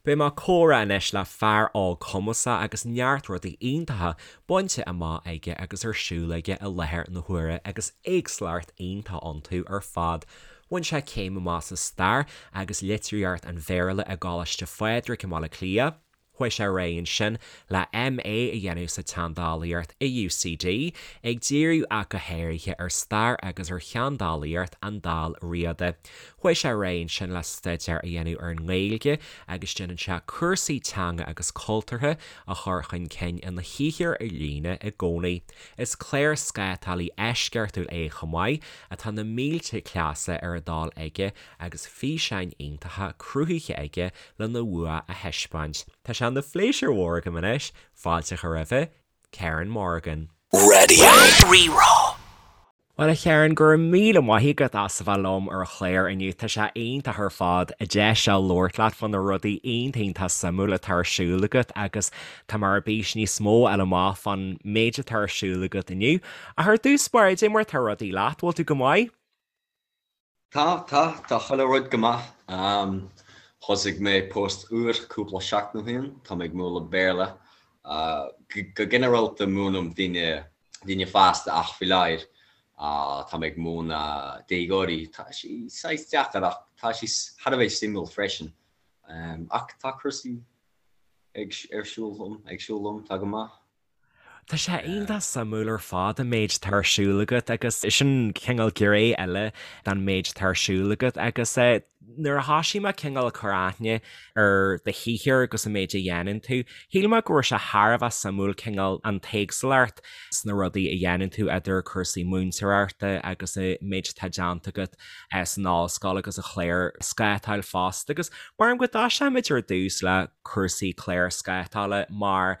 Beidh mé ag comhrá anois le fear óg cumasach agus neart rudaí iontacha bainte amach aige agus ar siúl aige i láthair na huaire agus éagsúlacht iontach iontu ar fad. Bhain sé céim amach sa Stair agus Litríocht an Bhéarla i gColáiste Phádraig i mBaile Átha Cliath. Chuaigh sé ar aghaidh ansin le MA a dhéanamh sa tSeandálaíocht i UCD, ag díriú ach go háirithe ar stair agus ar sheandálaíocht an Dál Riada. Chuaigh sé ar aghaidh ansin le staidéar a dhéanamh ar an nGaeilge agus déanann sé cúrsaí teanga agus cultúrtha a chur chun cinn ina shaothar ar líne i gcónaí. Is clárscátálaí eisceachtúil é chomh maith, atá na mílte cleasa ar a dtoil aige agus físeáin iontacha cruthaithe aige lena bhua a thaispeáint. Tá sé ina phléisiúr mhór agam anois fáilte a chur roimhe, Ciarán Morgan. Raidió Rí-Rá. Bhuel a Chiaráin, go raibh míle maith agat as a bheith liom ar an chlár inniu. Tá sé iontach ar fad an deis seo labhairt leat fá na rudaí iontach iontach suimiúil atá ar siúl agat agus tá mé ar bís níos mó a fháil amach fán méid atá ar siúl agat inniu. Ach ar dtús báire, cad é mar atá rudaí leat, bhfuil tú go maith? Tá, tá, tá chuile rud go maith. Thosaigh mé post úr cúpla seachtain ó shin, tá mé ag múineadh Béarla. Go ginearálta múinim daoine, daoine fásta ach faoi láthair tá mé ag múineadh déagóirí. Tá sé saghas deacair ach tá sé thar a bheith suimiúil freisin. Ach tá cúrsaí ag, ar siúl liom, ag siúl liom, tá go maith. Tá sé iontach suimiúil ar fad an méid atá ar siúl agat agus sin cineál gné eile den méid atá ar siúl agat agus nuair a thosaigh mé cineál ag cur aithne ar do shaothar agus an méid a dhéanann tú, shíl mé go raibh sé thar a bheith suimiúil cineál an t-éagsúlacht sna rudaí a dhéanann tú idir cúrsaí múinteoireachta agus an méid atá déanta agat san ollscoil agus an chlárscátáil fosta agus mar go dtoiseoimid ar dtús le cúrsaí clárscátála mar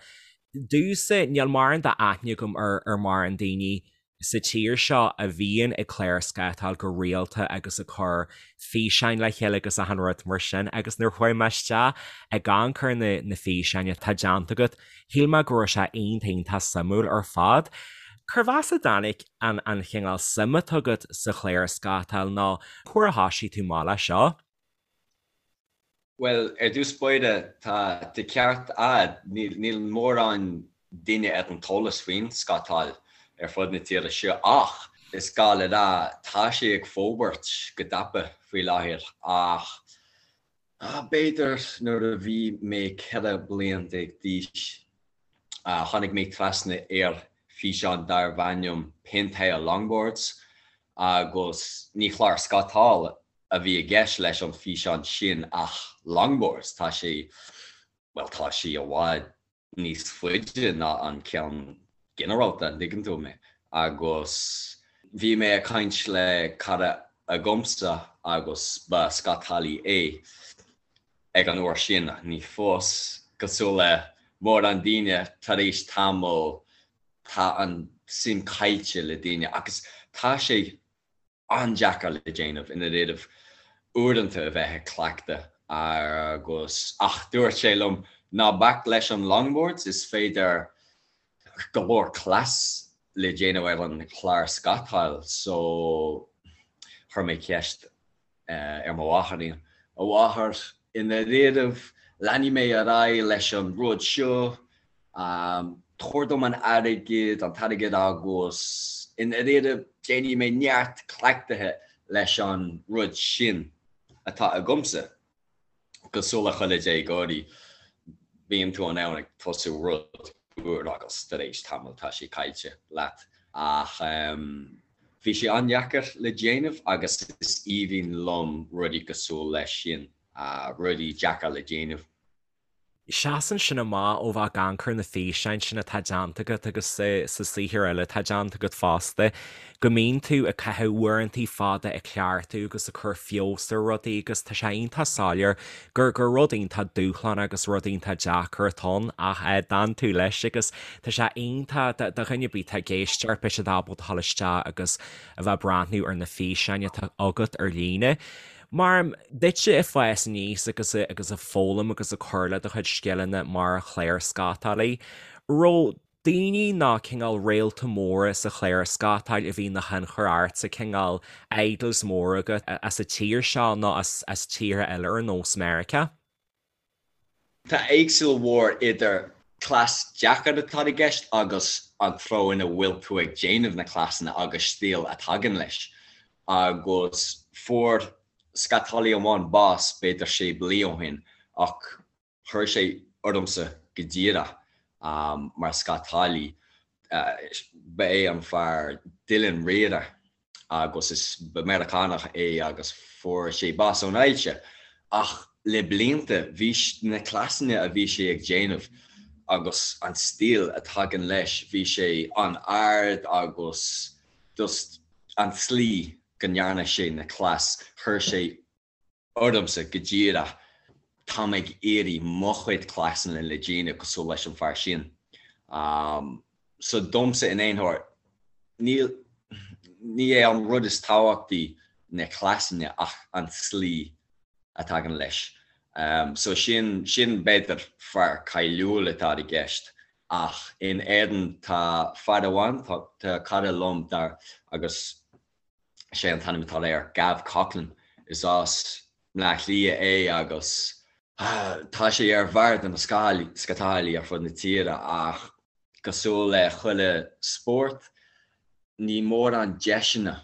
Domhsa, níl mórán d'aithne agam ar mórán daoine sa tír seo a bhíonn ag clárscátáil go rialta agus ag cur físeáin le chéile agus achan rud mar sin agus nuair a chuaigh mé isteach ag amharc ar na físeáin atá déanta agat, shíl mé go raibh sé iontach iontach suimiúil ar fad. Cérbh as a dtáinig an an chineál suim atá agat sa chlárscátáil nó cá huair a thosaigh tú amach leis seo? Bhuel, ar dtús báire, tá an ceart a'd, níl mórán duine ar an t-eolas faoin scátáil ar fud na tíre seo ach is gá le rá, tá sé ag forbairt go tapa faoi láthair ach b'fhéidir nuair a bhí mé 14 bliain d'aois, tháinig mé trasna ar físeán darbh ainm Pentire Longboards agus ní chlár scátála a bhí i gceist leis an físeán sin ach longboards, tá sé, bhuel tá sé i bhfad níos faide ná an ceann ginearálta, an dtuigeann tú mé? Agus bhí mé ag caint le cara agamsa agus ba scátálaí é ag an uair sin, ní fós, cosúil le mórán daoine, tar éis tamaill tá an suim caillte le daoine agus tá sé an-deacair le déanamh i ndáiríribh uaireanta a bheith ag cleachtadh agus ach dúirt sé liom ná bac leis an longboards, is féidir go leor cleas le déanamh ar an chlár scátáil so chuir mé ceist ar mo mháthair, a mháthair, i ndáiríribh leanfaidh mé ar aghaidh leis an rud seo, tabhair dom an airgead, an t-airgead agus i ndáiríribh déanfaidh mé neart cleachtaithe leis an rud sin atá agamsa. Cosúil le chuile déagóirí, bíonn tú in ann ag tosú rud úr agus tar éis tamaill tá sé caillte leat. Ach bhí sé an-deacair le déanamh agus is aoibhinn liom rudaí cosúil leis sin, rudaí deacair le déanamh. Seasann sin amach ó bheith ag amharc ar na físeáin sin atá déanta agat agus sa saothar eile atá déanta agat fosta, go mbíonn tú ag caitheamh uaireantaí fada ag cleachtadh agus ag cur feabhas ar rudaí agus tá sé iontach soiléir gur gur rud iontach dúshlánach agus rud iontach deacair atá ann ach d'fhan tú leis agus tá sé iontach do dhuine ar bith atá ag éisteacht beidh siad ábalta a dhul isteach agus a bheith ag breathnú ar na físeáin atá agat ar líne. Mar duitse ag fás aníos agus agus ag foghlaim agus ag cur le do chuid scileanna mar chlárscátálaí, raibh daoine nó cineál réalta móra sa chlárscátáil a bhí ina thionchar ortsa, cineál idols móra agat as an tír seo nó as as tíortha eile ar nós Meiriceá? Tá éagsúil mhór idir cleas deacair atá i gceist agus an treo ina bhfuil tú ag déanamh na cleasanna agus stíl a tagann leis. Agus fuair scátálaí amháin bás b'fhéidir sé bliain ó shin ach Chuir sé ormsa go díreach mar scátálaí. Ba é an fear Dylan Rieder agus is ba Meiriceánach é agus fuair sé bás ón ailse. Ach le blianta bhí na cleasanna a bhí sé ag déanamh agus an stíl a tagann leis, bhí sé an-ard agus just an tslí go ndearna sé na cleas, chuir sé ormsa go díreach, táim ag iarraidh mo chuid cleasanna le déanamh cosúil leis an fear sin. So domsa in aon chor, níl, ní é an rud is tábhachtaí na cleasanna ach an tslí a tagann leis. So sin, sin b'fhéidir fear cáiliúil atá i gceist ach in Éirinn tá fear amháin, tá, tá cara liom dar agus Sé an t-ainm atá air Gav Coughlan. Is as Bleá Cliath é agus tá sé ar bharr de na scátálaí ar fud na tíre ach cosúil le chuile spórt ní mórán deiseanna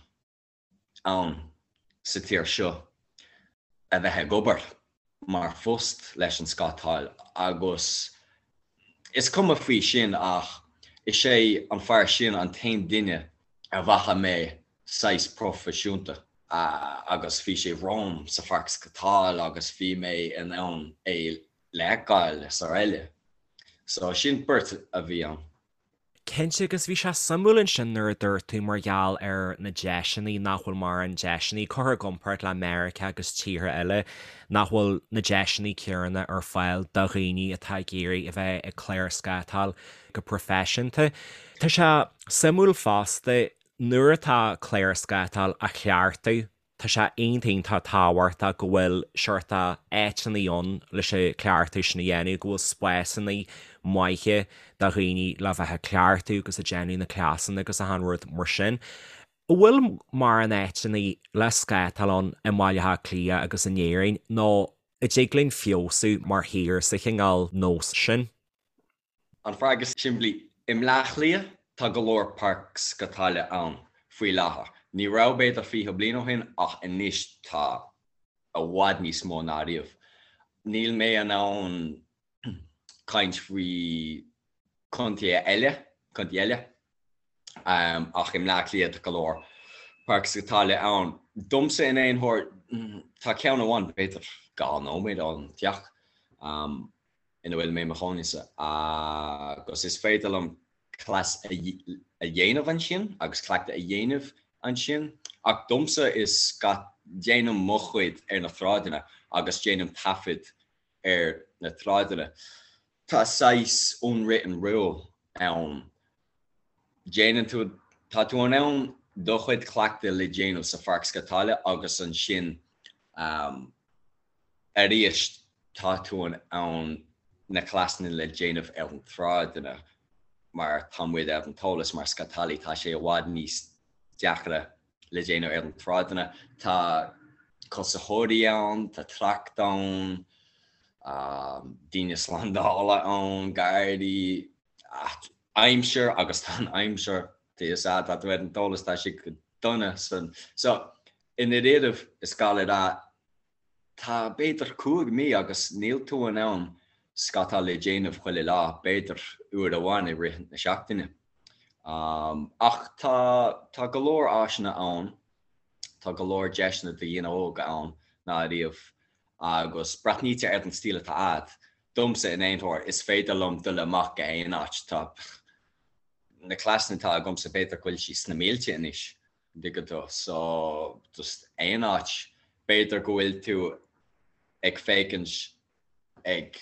ann sa tír seo a bheith ag obair mar phost leis an scátáil agus is cuma faoi sin ach is é an fear sin an t-aon duine a bhfaca mé saghas proifisiúnta agus bhí sé romham sa pháirc scátáil agus bhí mé in ann é le fheiceáil is araile. So sin beirt a bhí ann. Cinnte, agus bhí sé suimiúil ansin nuair a dúirt tú mar gheall ar na deiseanna, nach bhfuil mórán deiseanna, curtha i gcomparáid le Meiriceá agus tíortha eile, nach bhfuil na deiseanna céanna ar fáil do dhaoine atá ag iarraidh a bheith ag clárscátáil go proifisiúnta. Tá sé suimiúil fosta, nuair atá clárscátáil á chleachtadh, Tá sé iontach iontach tábhachtach go bhfuil seort áiteanna ann leis an cleachtadh sin a dhéanamh, go bhfuil spásanna maithe do dhaoine le bheith ag cleachtadh agus ag déanamh na cleasanna agus achan rud mar sin. An bhfuil mórán áiteanna le scátáil ann i mBaile Átha Cliath agus in Éirinn nó an dtig linn feabhsú mar thír sa chineál nós sin? An freagra simplí, i mBleá Cliath tá go leor páirc scátála ann faoi láthair. Ní raibh b'fhéidir 20 bliain ó shin ach anois tá i bhfad níos mó ná riamh. Níl mé in ann caint faoi contaetha eile, contae eile, ach i mBleá Cliath tá go leor páirc scátála ann. Domsa in aon chor tá ceann amháin b'fhéidir 2 nóiméad ón teach. ina bhfuil mé i mo chónaí-sa agus is féidir liom cleas a dhéanamh ansin agus cleachtadh a dhéanamh ansin ach domsa is déanaim mo chuid ar na sráideanna agus déanaim taifead ar na sráideanna. Tá saghas unwritten rule ann. Déanann tú, tá tú in ann do chuid cleachtaidh le déanamh sa pháirc scátála agus ansin Arís, tá tú in ann na cleasanna le déanamh ar an tsráideanna mar tá muid ar an t-eolas mar scátálaí, tá sé i bhfad níos deacra le déanamh ar an tsráideanna. Tá cosaitheoirí ann, tá trácht ann, daoine slándála ann, gardaí, aimsir agus tá an aimsir, tá fhios a'd, tá tú ar an t-eolas, tá sé go dona san. So, i ndáiríribh, is gá le rá, Tá b'fhéidir 5 mí agus níl tú in ann scátáil le déanamh chuile lá, b'fhéidir uair amháin i rith na seachtaine. Ach tá tá go leor áiseanna ann, tá go leor deiseanna do dhaoine óga ann ná ariamh agus breathnaítear ar an stíl atá a'd. Domsa in aon chor, is féidir liom dul amach go haon áit, tá na cleasanna atá agamsa b'fhéidir go bhfuil siad sna mílte anois. dtuigeann tú. So, just aon áit, b'fhéidir go bhfuil tú ag féachaint ag,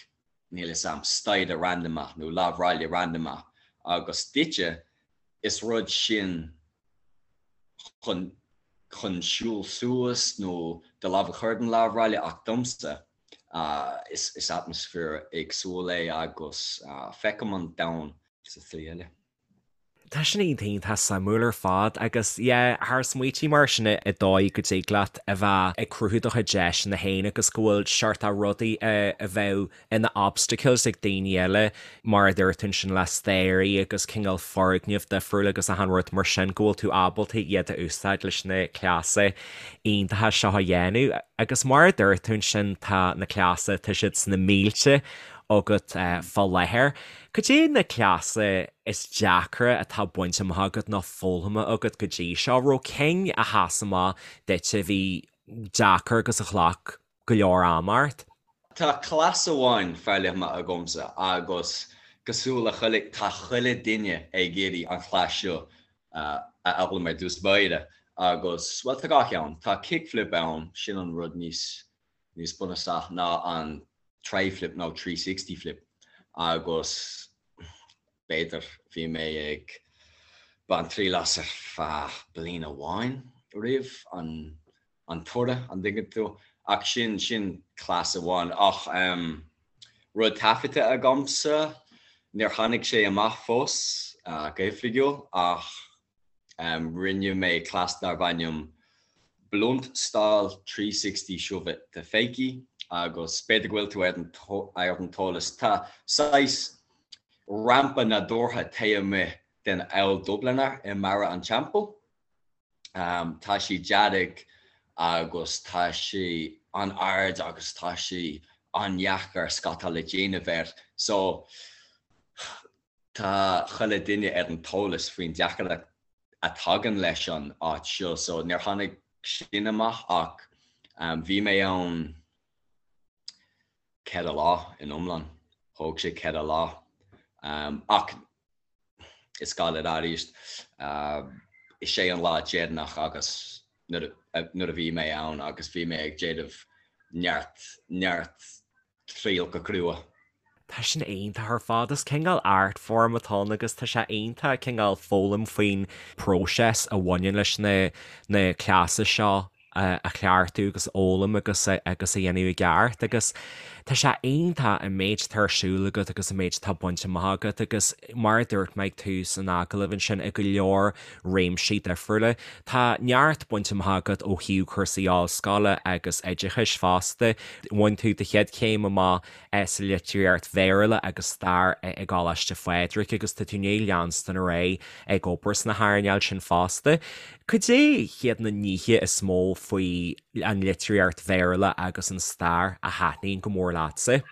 níl 'fhios a'm, staighre randamach nó lámhráille randamach agus duitse, is rud sin chun, chun siúl suas nó do lámh a chur den lámhráille ach domsa, is, is atmaisféar éagsúil é agus feicim an domhan sa tslí eile. Tá sin iontach suimiúil ar fad agus yeah thar smaoití mar sin i dóigh go dtig leat a bheith ag cruthú do chuid deiseanna féin agus go bhfuil seort de rudaí a bheadh ina obstacles ag daoine eile mar a dúirt tú ansin le staighrí agus cineál foirgneamh difriúil agus achan rud mar sin go bhfuil tú ábalta iad a úsáid leis na cleasa iontacha seo a dhéanamh agus mar a dúirt tú ansin tá na cleasa tá siad sna mílte agat fá láthair. Cad é na cleasa is deacra atá bainte amach agat nó foghlamtha agat go dtí seo? Raibh cinn a sheas amach duit a bhí deacair agus a ghlac go leor ama ort? Tá cleas amháin foghlamtha agamsa agus cosúil le chuile, tá chuile duine ag iarraidh an chleas seo a fhoghlaim ar dtús báire agus, bhuel, tá dhá cheann. Tá kickflip ann, sin an rud níos níos bunúsach ná an tri-flip nó 360 flip agus b'fhéidir bhí mé ag baint triail as ar feadh bliain amháin roimh an an toradh, an dtuigeann tú? Ach sin, sin cleas amháin. Ach rud taifeadta agamsa, níor tháinig sé amach fós go hoifigiúil ach Rinne mé cleas darbh ainm Blunt Stall 360 Shove It to Fakie agus b'fhéidir go bhfuil tú ar an t-eolas, tá saghas rampa nádúrtha taobh amuigh den Auld Dubliner i mBarra an Teampaill. Tá sé dearg agus tá sé an-ard agus tá sé an-dheacair scátáil a dhéanamh air so Tá chuile duine ar an t-eolas faoin deacracht a tagann leis an áit seo so níor tháinig sin amach ach bhí mé ann 4 lá in iomlán, thóg sé 4 lá ach is gá le rá arís is é an lá deireanach agus nuair a bhí mé ann agus bhí mé ag déanamh neart neart triail go crua. Tá sin iontach ar fad. Is cineál art form atá ann agus tá sé iontach cineál foghlaim faoin próiseas a bhaineann leis na na cleasa seo a chleachtadh agus a fhoghlaim agus agus a dhéanamh i gceart agus tá sé iontach an méid atá ar siúl agat agus an méid atá bainte amach agat agus mar a dúirt mé ag tús an agallaimh ansin i go leor réimsí difriúla. Tá neart bainte amach agat ó thaobh cúrsaí ollscoile agus oideachais fosta. Bhain tú do chéad chéim amach sa litríocht Bhéarla agus stair i gColáiste Phádraig agus tá tú i ndiaidh leanstan ar aghaidh ag obair sna hearnáil sin fosta. Cad é hiad na nithe is mó faoi an litríocht Bhéarla agus an stair a thaitníonn go mór leatsa?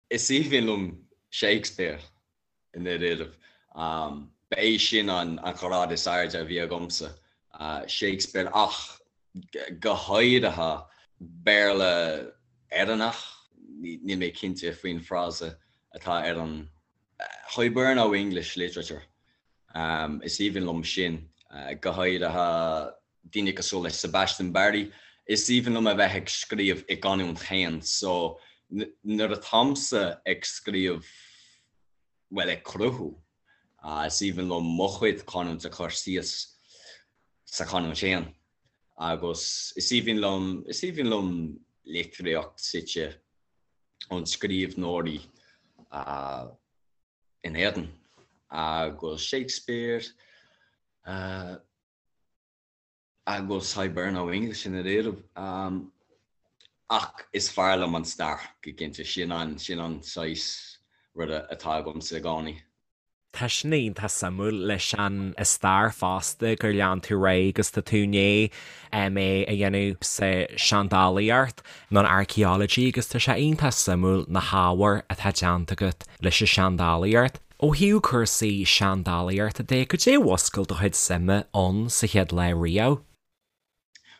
Is aoibhinn liom Shakespeare i ndáiríribh. Ba é sin an ghrád is airde a bhí agamsa, Shakespeare, ach go háirithe Béarla Éireannach, níl mé cinnte faoin frása atá ar an Hiberno-English literature. Is aoibhinn liom sin, go háirithe daoine cosúil le Sebastian Barry, is aoibhinn liom a bheith ag scríobh i gcanúint féin so nuair atáimse ag scríobh, bhuel ag cruthú, is aoibhinn liom mo chuid canúint a chur síos sa chanúint féin agus is aoibhinn liom, is aoibhinn liom litríocht suite ón scríbhneoirí in Éirinn agus Shakespeare, agus Hiberno-English i ndáiríribh. Ach is fearr liom an stair, go cinnte. Sin an, sin an saghas ruda atá agamsa i gcónaí. Tá sin iontach suimiúil leis an stair fosta gur lean tú ar aghaidh agus tá tú i ndiaidh MA a dhéanamh sa seandálaíocht nó an archaeology agus tá sé iontach suimiúil na hábhair atá déanta agat leis an seandálaíocht. Ó thaobh cúrsaí seandálaíochta de, cad é a mhúscail do chuid suime ann sa chéad lá riamh?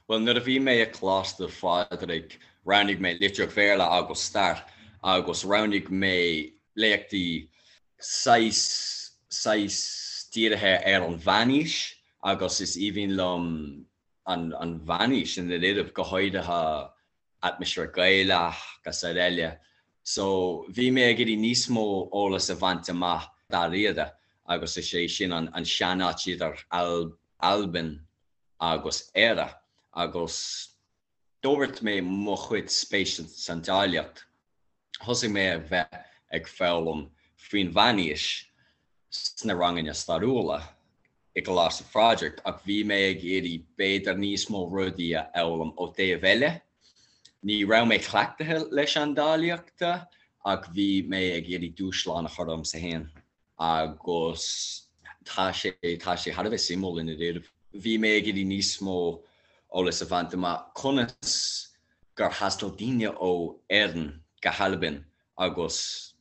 Bhuel, nuair a bhí mé i Coláiste Phádraig, roghnaigh mé Litríocht Bhéarla agus Stair agus roghnaigh mé léachtaí saghas, saghas dírithe ar an Mheánaois agus is aoibhinn liom an, an Mheánaois i ndáiríribh, go háirithe atmaisféar Gaelach agus araile. So bhí mé ag iarraidh níos mó eolas a bhaint amach dáiríre agus is é sin an seanáit idir Albain agus Éire agus d'fhorbair mé mo chuid spéise san seandálaíocht. Thosaigh mé a bheith ag foghlaim faoin mheánaois. sna ranganna stairiúla i gColáiste Phádraig ach bhí mé ag iarraidh b'fhéidir níos mó rudaí a fhoghlaim ó taobh eile. Ní raibh mé cleachtaithe le seandálaíochta ach bhí mé ag iarraidh dúshlán a chur ormsa féin agus tá sé tá sé thar a bheith suimiúil i ndáiríre. Bhí mé ag iarraidh níos mó eolas a bhaint amach conas gur thaistil daoine ó Éirinn go hAlbain agus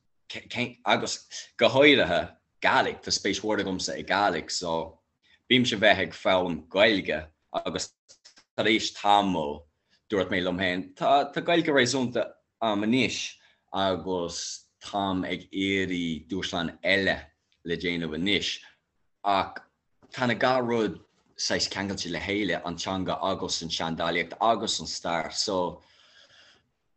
agus go háirithe Gàidhlig, tá spéis mhór agamsa i Gàidhlig so bímse bheith ag foghlaim Gaeilge agus tar éis tamaill dúirt mé liom féin tá tá Gaeilge réasúnta a'm anois agus táim ag iarraidh dúshlán eile le déanamh anois ach tá na dhá rud saghas ceangailte le chéile, an teanga agus an seandálaíocht agus an stair so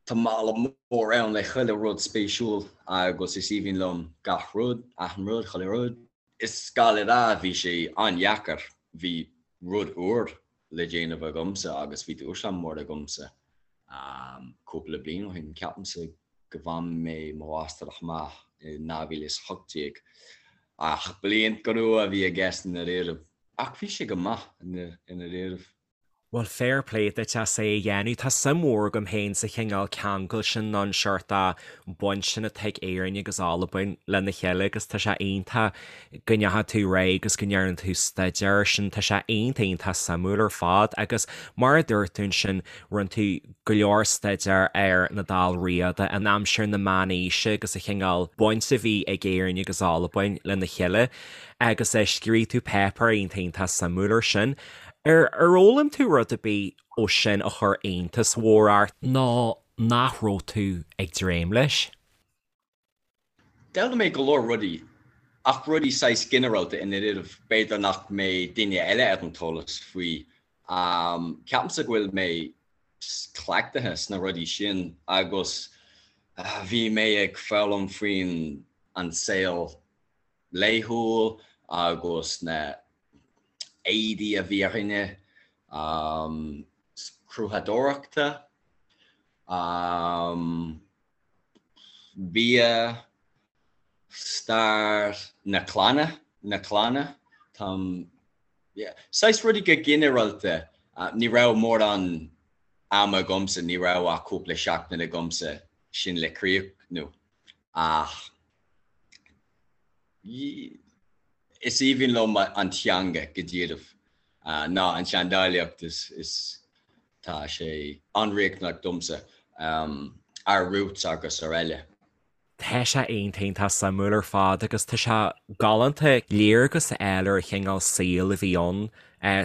Tá mála mór ann le chuile rud spéisiúil agus is aoibhinn liom gach rud, achan rud, chuile rud. Is gá le rá, bhí sé an-dheacair, bhí rud úr le déanamh agamsa agus bhí dúshlán mór agamsa cúpla bliain ó shin. Ceapaimse go bhain mé mo mháistreacht amach i 2018 ach bliain crua a bhí i gceist i ndáiríre. Ach bhí sé go maith i ndáiríre. Bhuel, fair play duit as é a dhéanamh. Tá suim mhór agam féin sa chineál ceangal sin nó an seort baint sin atá ag Éirinn agus Albain lena chéile agus tá sé iontach go ndeachaigh tú ar aghaidh agus go ndearna tú staidéar air sin. Tá sé iontach iontach suimiúil ar fad agus mar a dúirt tú ansin, rinne tú go leor staidéar ar na Dál Riada in aimsir na Meánaoise agus an chineál baint a bhí ag Éirinn agus Albain lena chéile agus scríobh tú páipéar iontach iontach suimiúil air sin. Ar fhoghlaim tú rud ar bith ó sin a chuir iontas mhór ort nó nach raibh tú ag dréim leis? D'fhoghlaim mé go leor rudaí, ach rudaí saghas ginearálta i ndáiríre, b'fhéidir nach mbeidh duine eile ar an t-eolas faoi. Ceapaimse go bhfuil mé cleachtaithe sna rudaí sin agus bhí mé ag foghlaim faoin an saol laethúil agus na éadaí a bhí ar dhaoine, cruthaitheoireachta, bia, stair na clanna, na clanna, táim, yeah, saghas rudaí go ginearálta, ní raibh mórán ama agamsa, ní raibh ach cúpla seachtain agamsa sin le críochnú ach is aoibhinn liom an teanga go díreach ná an tseandálaíocht is tá sé an-riachtanach domsa, our roots agus araile. Tá sé iontach iontach suimiúil ar fad agus tá sé galánta léargas a fháil ar an chineál saoil a bhí ann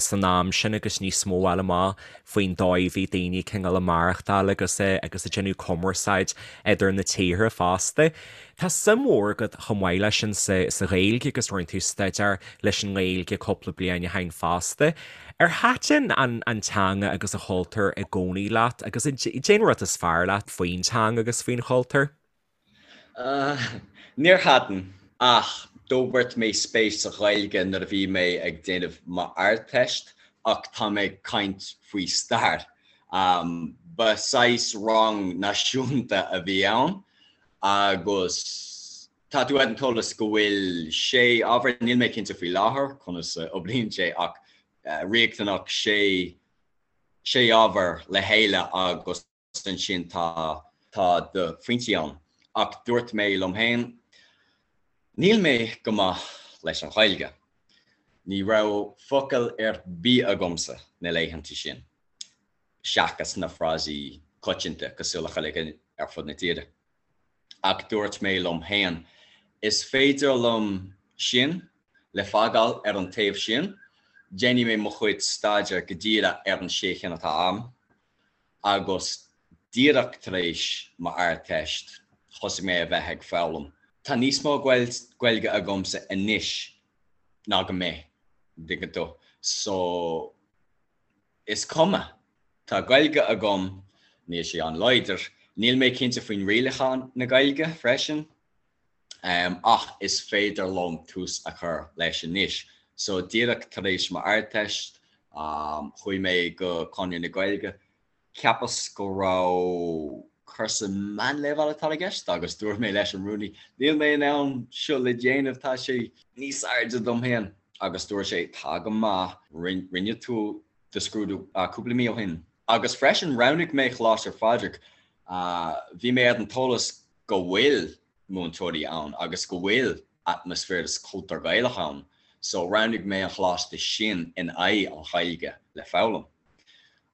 san am sin agus níos mó a fháil amach faoin dóigh a bhí daoine cineál ag maireachtáil agus agus ag déanamh cumarsáid idir na tíortha fosta. Tá suim mhór agat chomh maith leis sin sa sa Ghaeilge agus rinne tú staidéar leis an nGaeilge cúpla bliain ó shin fosta. Ar thaitin an an teanga agus an chultúr i gcónaí leat agus cén rud is fearr leat faoin teanga agus faoin chultúr? Níor thaitin, ach d'fhorbair mé spéis sa Ghaeilge nuair a bhí mé ag déanamh m'Ardteist ach tá mé ag caint faoi stair. Ba saghas rang náisiúnta a bhí ann agus tá tú ar an t-eolas go bhfuil sé ábhar, níl mé cinnte faoi láthair conas a oibríonn sé ach riachtanach sé sé ábhar le chéile agus ansin tá tá do phointí ann. Ach dúirt mé liom féin, níl mé go maith leis an Ghaeilge. Ní raibh focal ar bith agamsa na laethanta sin, seachas na frásaí coitianta cosúil le chuile dhuine ar fud na tíre. Ach dúirt mé liom féin, is féidir liom sin le fágáil ar an taobh sin, déanfaidh mé mo chuid staidéir go díreach ar an sé cinn atá agam. Agus díreach tar éis m'Ardteist, thosaigh mé a bheith ag foghlaim. Tá níos mó Gaeilge agamsa anois ná go mbeidh, an dtuigeann tú. So, is cuma. Tá Gaeilge agam, níl sé an-láidir. Níl mé cinnte faoin rialacháin na Gaeilge freisin. Ach is féidir liom tús a chur leis anois. So díreach tar éis m'Ardteist, chuaigh mé go Conradh na Gaeilge. Cheapas go raibh. Cúrsa meánleibhéal atá i gceist agus dúirt mé leis an rúnaí, níl mé in ann seo le déanamh, tá sé níos airde dom féin. Agus dúirt sé, tá go maith, rinne tú do scrúdú cúpla mí ó shin. Agus freisin roghnaigh mé Coláiste Phádraig, bhí mé ar an t-eolas go bhfuil múinteoirí ann agus go bhfuil atmaisféar is cultúr Gaelach ann, so roghnaigh mé an choláiste sin in aghaidh an Ghaeilge le foghlaim.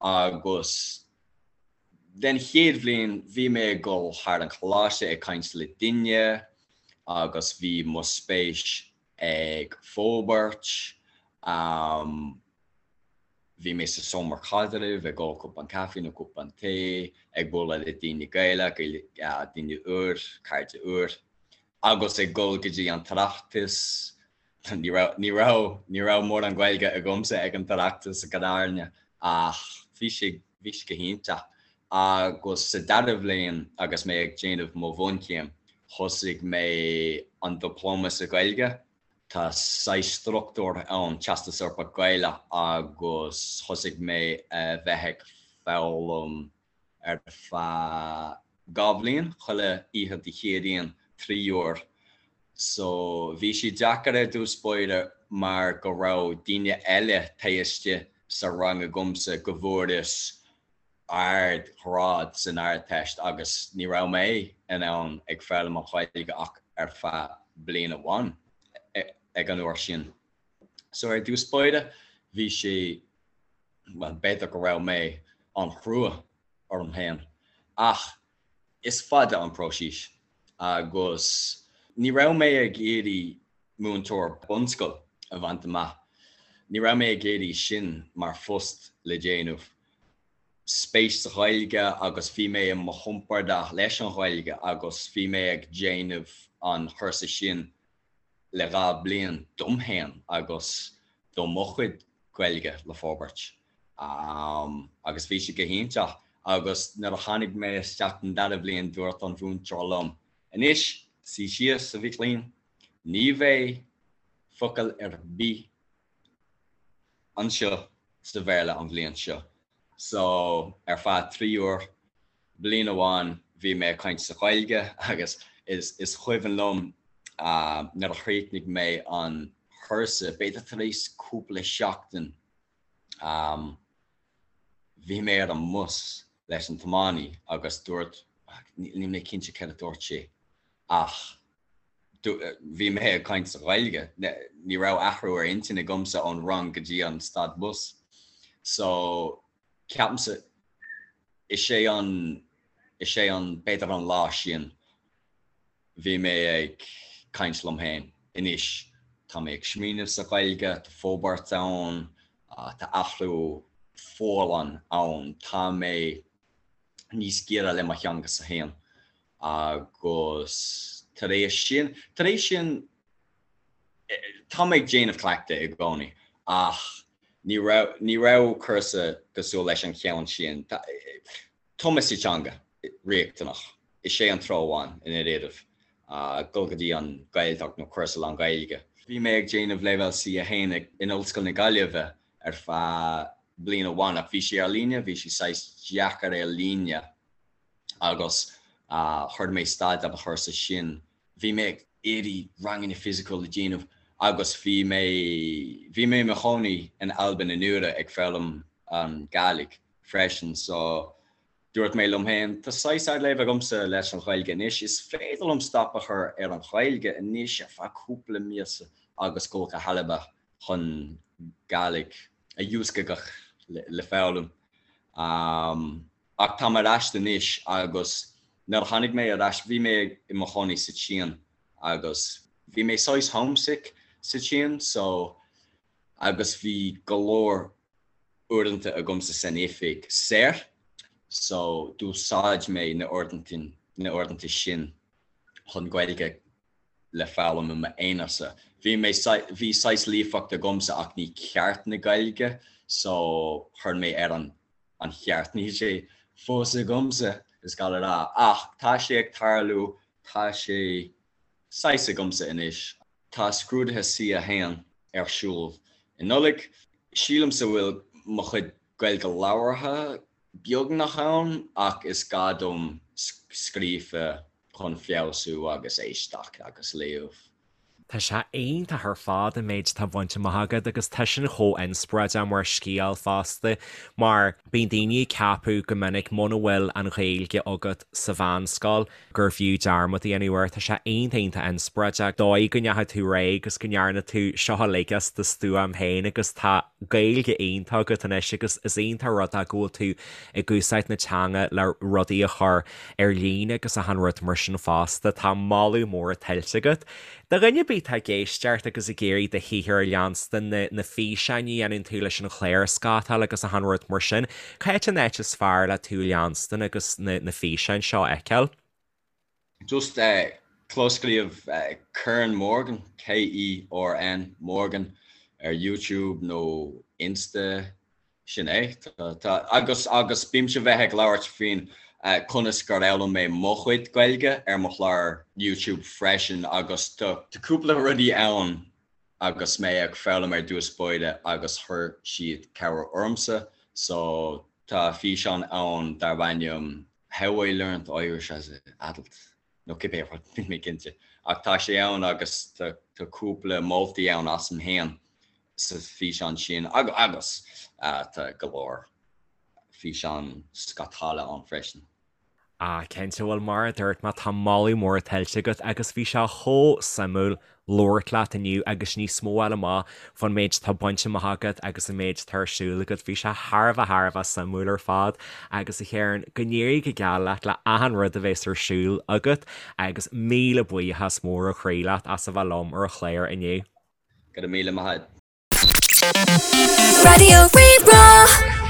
Agus den chéad bhliain bhí mé ag dul thar an choláiste ag caint le duine agus bhí mo spéis ag forbairt. Bhí mé sa seomra caidrimh ag ól cupán caife nó cupán tae, ag bualadh le daoine Gaelach, daoine úr, cairde úr, agus ag dul go dtí an tOireachtas. Ní raibh, ní raibh, ní raibh mórán Gaeilge agamsa ag an tOireachtas i ndáiríre ach bhí sé, bhí sé go hiontach. Agus sa dara bhliain agus mé ag déanamh mo bhunchéim, thosaigh mé an Dioplóma sa Ghaeilge. Tá saghas struchtúr ann, Teastas Eorpach Gaelach, agus thosaigh mé a bheith ag foghlaim ar feadh 2 bhliain, chuile oíche Dé Céadaoin, 3 uair. So bhí sé deacair ar dtús báire mar go raibh daoine eile taobh istigh sa rang agamsa go bhfuaireas ard ghrád san Ardteist agus ní raibh mé in ann ag foghlaim an Ghaeilge ach ar feadh bliain amháin ag an uair sin. So ar dtús báire bhí sé, bhuel b'fhéidir go raibh mé an-chrua orm féin ach is fada an próiseas agus ní raibh mé ag iarraidh múinteoir bunscoil a bhaint amach, ní raibh mé ag iarraidh sin mar phost le déanamh. Spéis sa Ghaeilge agus bhí mé i mo chompordach leis an Ghaeilge agus bhí mé ag déanamh an chúrsa sin le 2 bliain dom féin agus do mo chuid Gaeilge le forbairt. Agus bhí sé go hiontach agus nuair a tháinig mé isteach don dara bhliain dúirt an mhúinteoir liom, Anois, suigh síos, a mhic léinn, ní bheidh focal ar bith anseo sa Bhéarla an bhliain seo. So, ar feadh 3 uair, bliain amháin, bhí mé ag caint sa Ghaeilge agus is is cuimhin liom nuair a chríochnaigh mé an cúrsa, b'fhéidir tar éis cúpla seachtain, bhí mé ar an mbus leis an tiománaí agus dúirt, níl mé cinnte céard a dúirt sé ach bhí mé ag caint sa Ghaeilge, ní raibh athrú ar intinn agamsa ón rang go dtí an stad bus. So, ceapaimse, is é an, is é an, b'fhéidir an lá sin, bhí mé ag caint liom féin, anois tá mé ag smaoineamh sa Ghaeilge, tá forbairt ann, tá athrú folláin ann, tá mé níos giorra le mo theanga-sa féin. Agus tar éis sin, tar éis sin, tá mé ag déanamh cleachtadh i gcónaí ach ní raibh, ní raibh cúrsa cosúil leis an cheann sin. Tumadh sa teanga, riachtanach. Is é an treo amháin i ndáiríribh, dul go dtí an Ghaeltacht nó cúrsa lán-Ghaeilge. Bhí mé ag déanamh Leibhéal C1 in Ollscoil na Gaillimhe ar feadh bliain amháin ach bhí sé ar líne, bhí sé saghas deacair ar líne. agus chuir mé stad ar an chúrsa sin. Bhí mé ag iarraidh ranganna fisiciúil a dhéanamh agus bhí mé, bhí mé i mo chónaí in Albain anuraidh ag foghlaim an Gàidhlig freisin so dúirt mé liom féin, tá saghas ardleibhéal agamsa leis an Ghaeilge anois, is féidir liom stop a chur ar an Ghaeilge anois ar feadh cúpla míosa agus dul go hAlba chun Gàidhlig a dhiúscagadh le foghlaim. Ach táim ar ais anois agus nuair a tháinig mé ar ais, bhí mé i mo chónaí sa tSín agus bhí mé saghas homesick sa tSín so agus bhí go leor uaireanta agamsa san oifig saor so d'úsáid mé na uaireanta na uaireanta sin chun Gaeilge le foghlaim i m'aonarsa. Bhí mé bhí saghas líofacht agamsa ach ní ceart na Gaeilge so chuir mé ar an an cheart. Níl sé fós agamsa, is gá le rá, ach tá sé ag tarlú, tá sé saghas agamsa anois. Tá scrúduithe C1 ar siúl i Nollaig. Sílimse bhfuil mo chuid Gaeilge labhartha beagnach ann ach is gá dom. scríofa chun feabhsú agus éisteacht agus léamh. Tá sé iontach ar fad an méid atá bainte amach agat agus tá sin chomh inspioráideach mar scéal fosta mar bíonn daoine ag ceapadh go minic muna bhfuil an Ghaeilge agat sa mheánscoil gurbh fhiú dearmad a dhéanamh air. Tá sé iontach iontach inspioráideach dóigh go ndeachaigh tú ar aghaidh agus go ndearna tú seo uilig as do stuaim féin agus tá Gaeilge iontach agat anois agus is iontach an rud é go bhfuil tú ag úsáid na teanga le rudaí a chur ar líne agus achan rud mar sin fosta. Tá moladh mór tuillte agat. Do dhuine ar bith atá ag éisteacht agus ag iarraidh do shaothar a leanstan, na na físeáin a dhéanann tú leis an chlár scátáil agus achan rud mar sin, cá háit an áit is fearr le tú a leanstan agus na na físeáin seo a fheiceáil? Just clóscríobh Kern Morgan, K-E-R-N Morgan, ar YouTube nó Insta Sin é. Tá, agus, agus bímse bheith ag labhairt faoin conas gur fhoghlaim mé mo chuid Gaeilge ar mo chlár YouTube freisin agus tá cúpla rudaí ann agus mé ag foghlaim ar dtús báire agus chuir siad cabhair ormsa. So tá físeán ann darb ainm How I Learned Irish as an Adult nó cibé rud, níl mé cinnte. Ach tá sé ann agus tá cúpla moltaí ann asam féin sa físeán sin agus tá go leor físeán scátála ann freisin. Ah cinnte, bhuel mar a dúirt mé tá moladh mór tuillte agat agus bhí sé chomh suimiúil labhairt leat inniu agus níos mó a fháil amach fán méid atá bainte amach agat agus an méid atá ar siúl agat. Bhí sé thar a bheith thar a bheith suimiúil ar fad agus a Chearn, go n-éirí go geal leat le achan rud a bheas ar siúl agat agus míle buíochas mór ó chroí leat as a bheith liom ar an chlár inniu. Go raibh míle maith agat. Raidió Rí-Rá.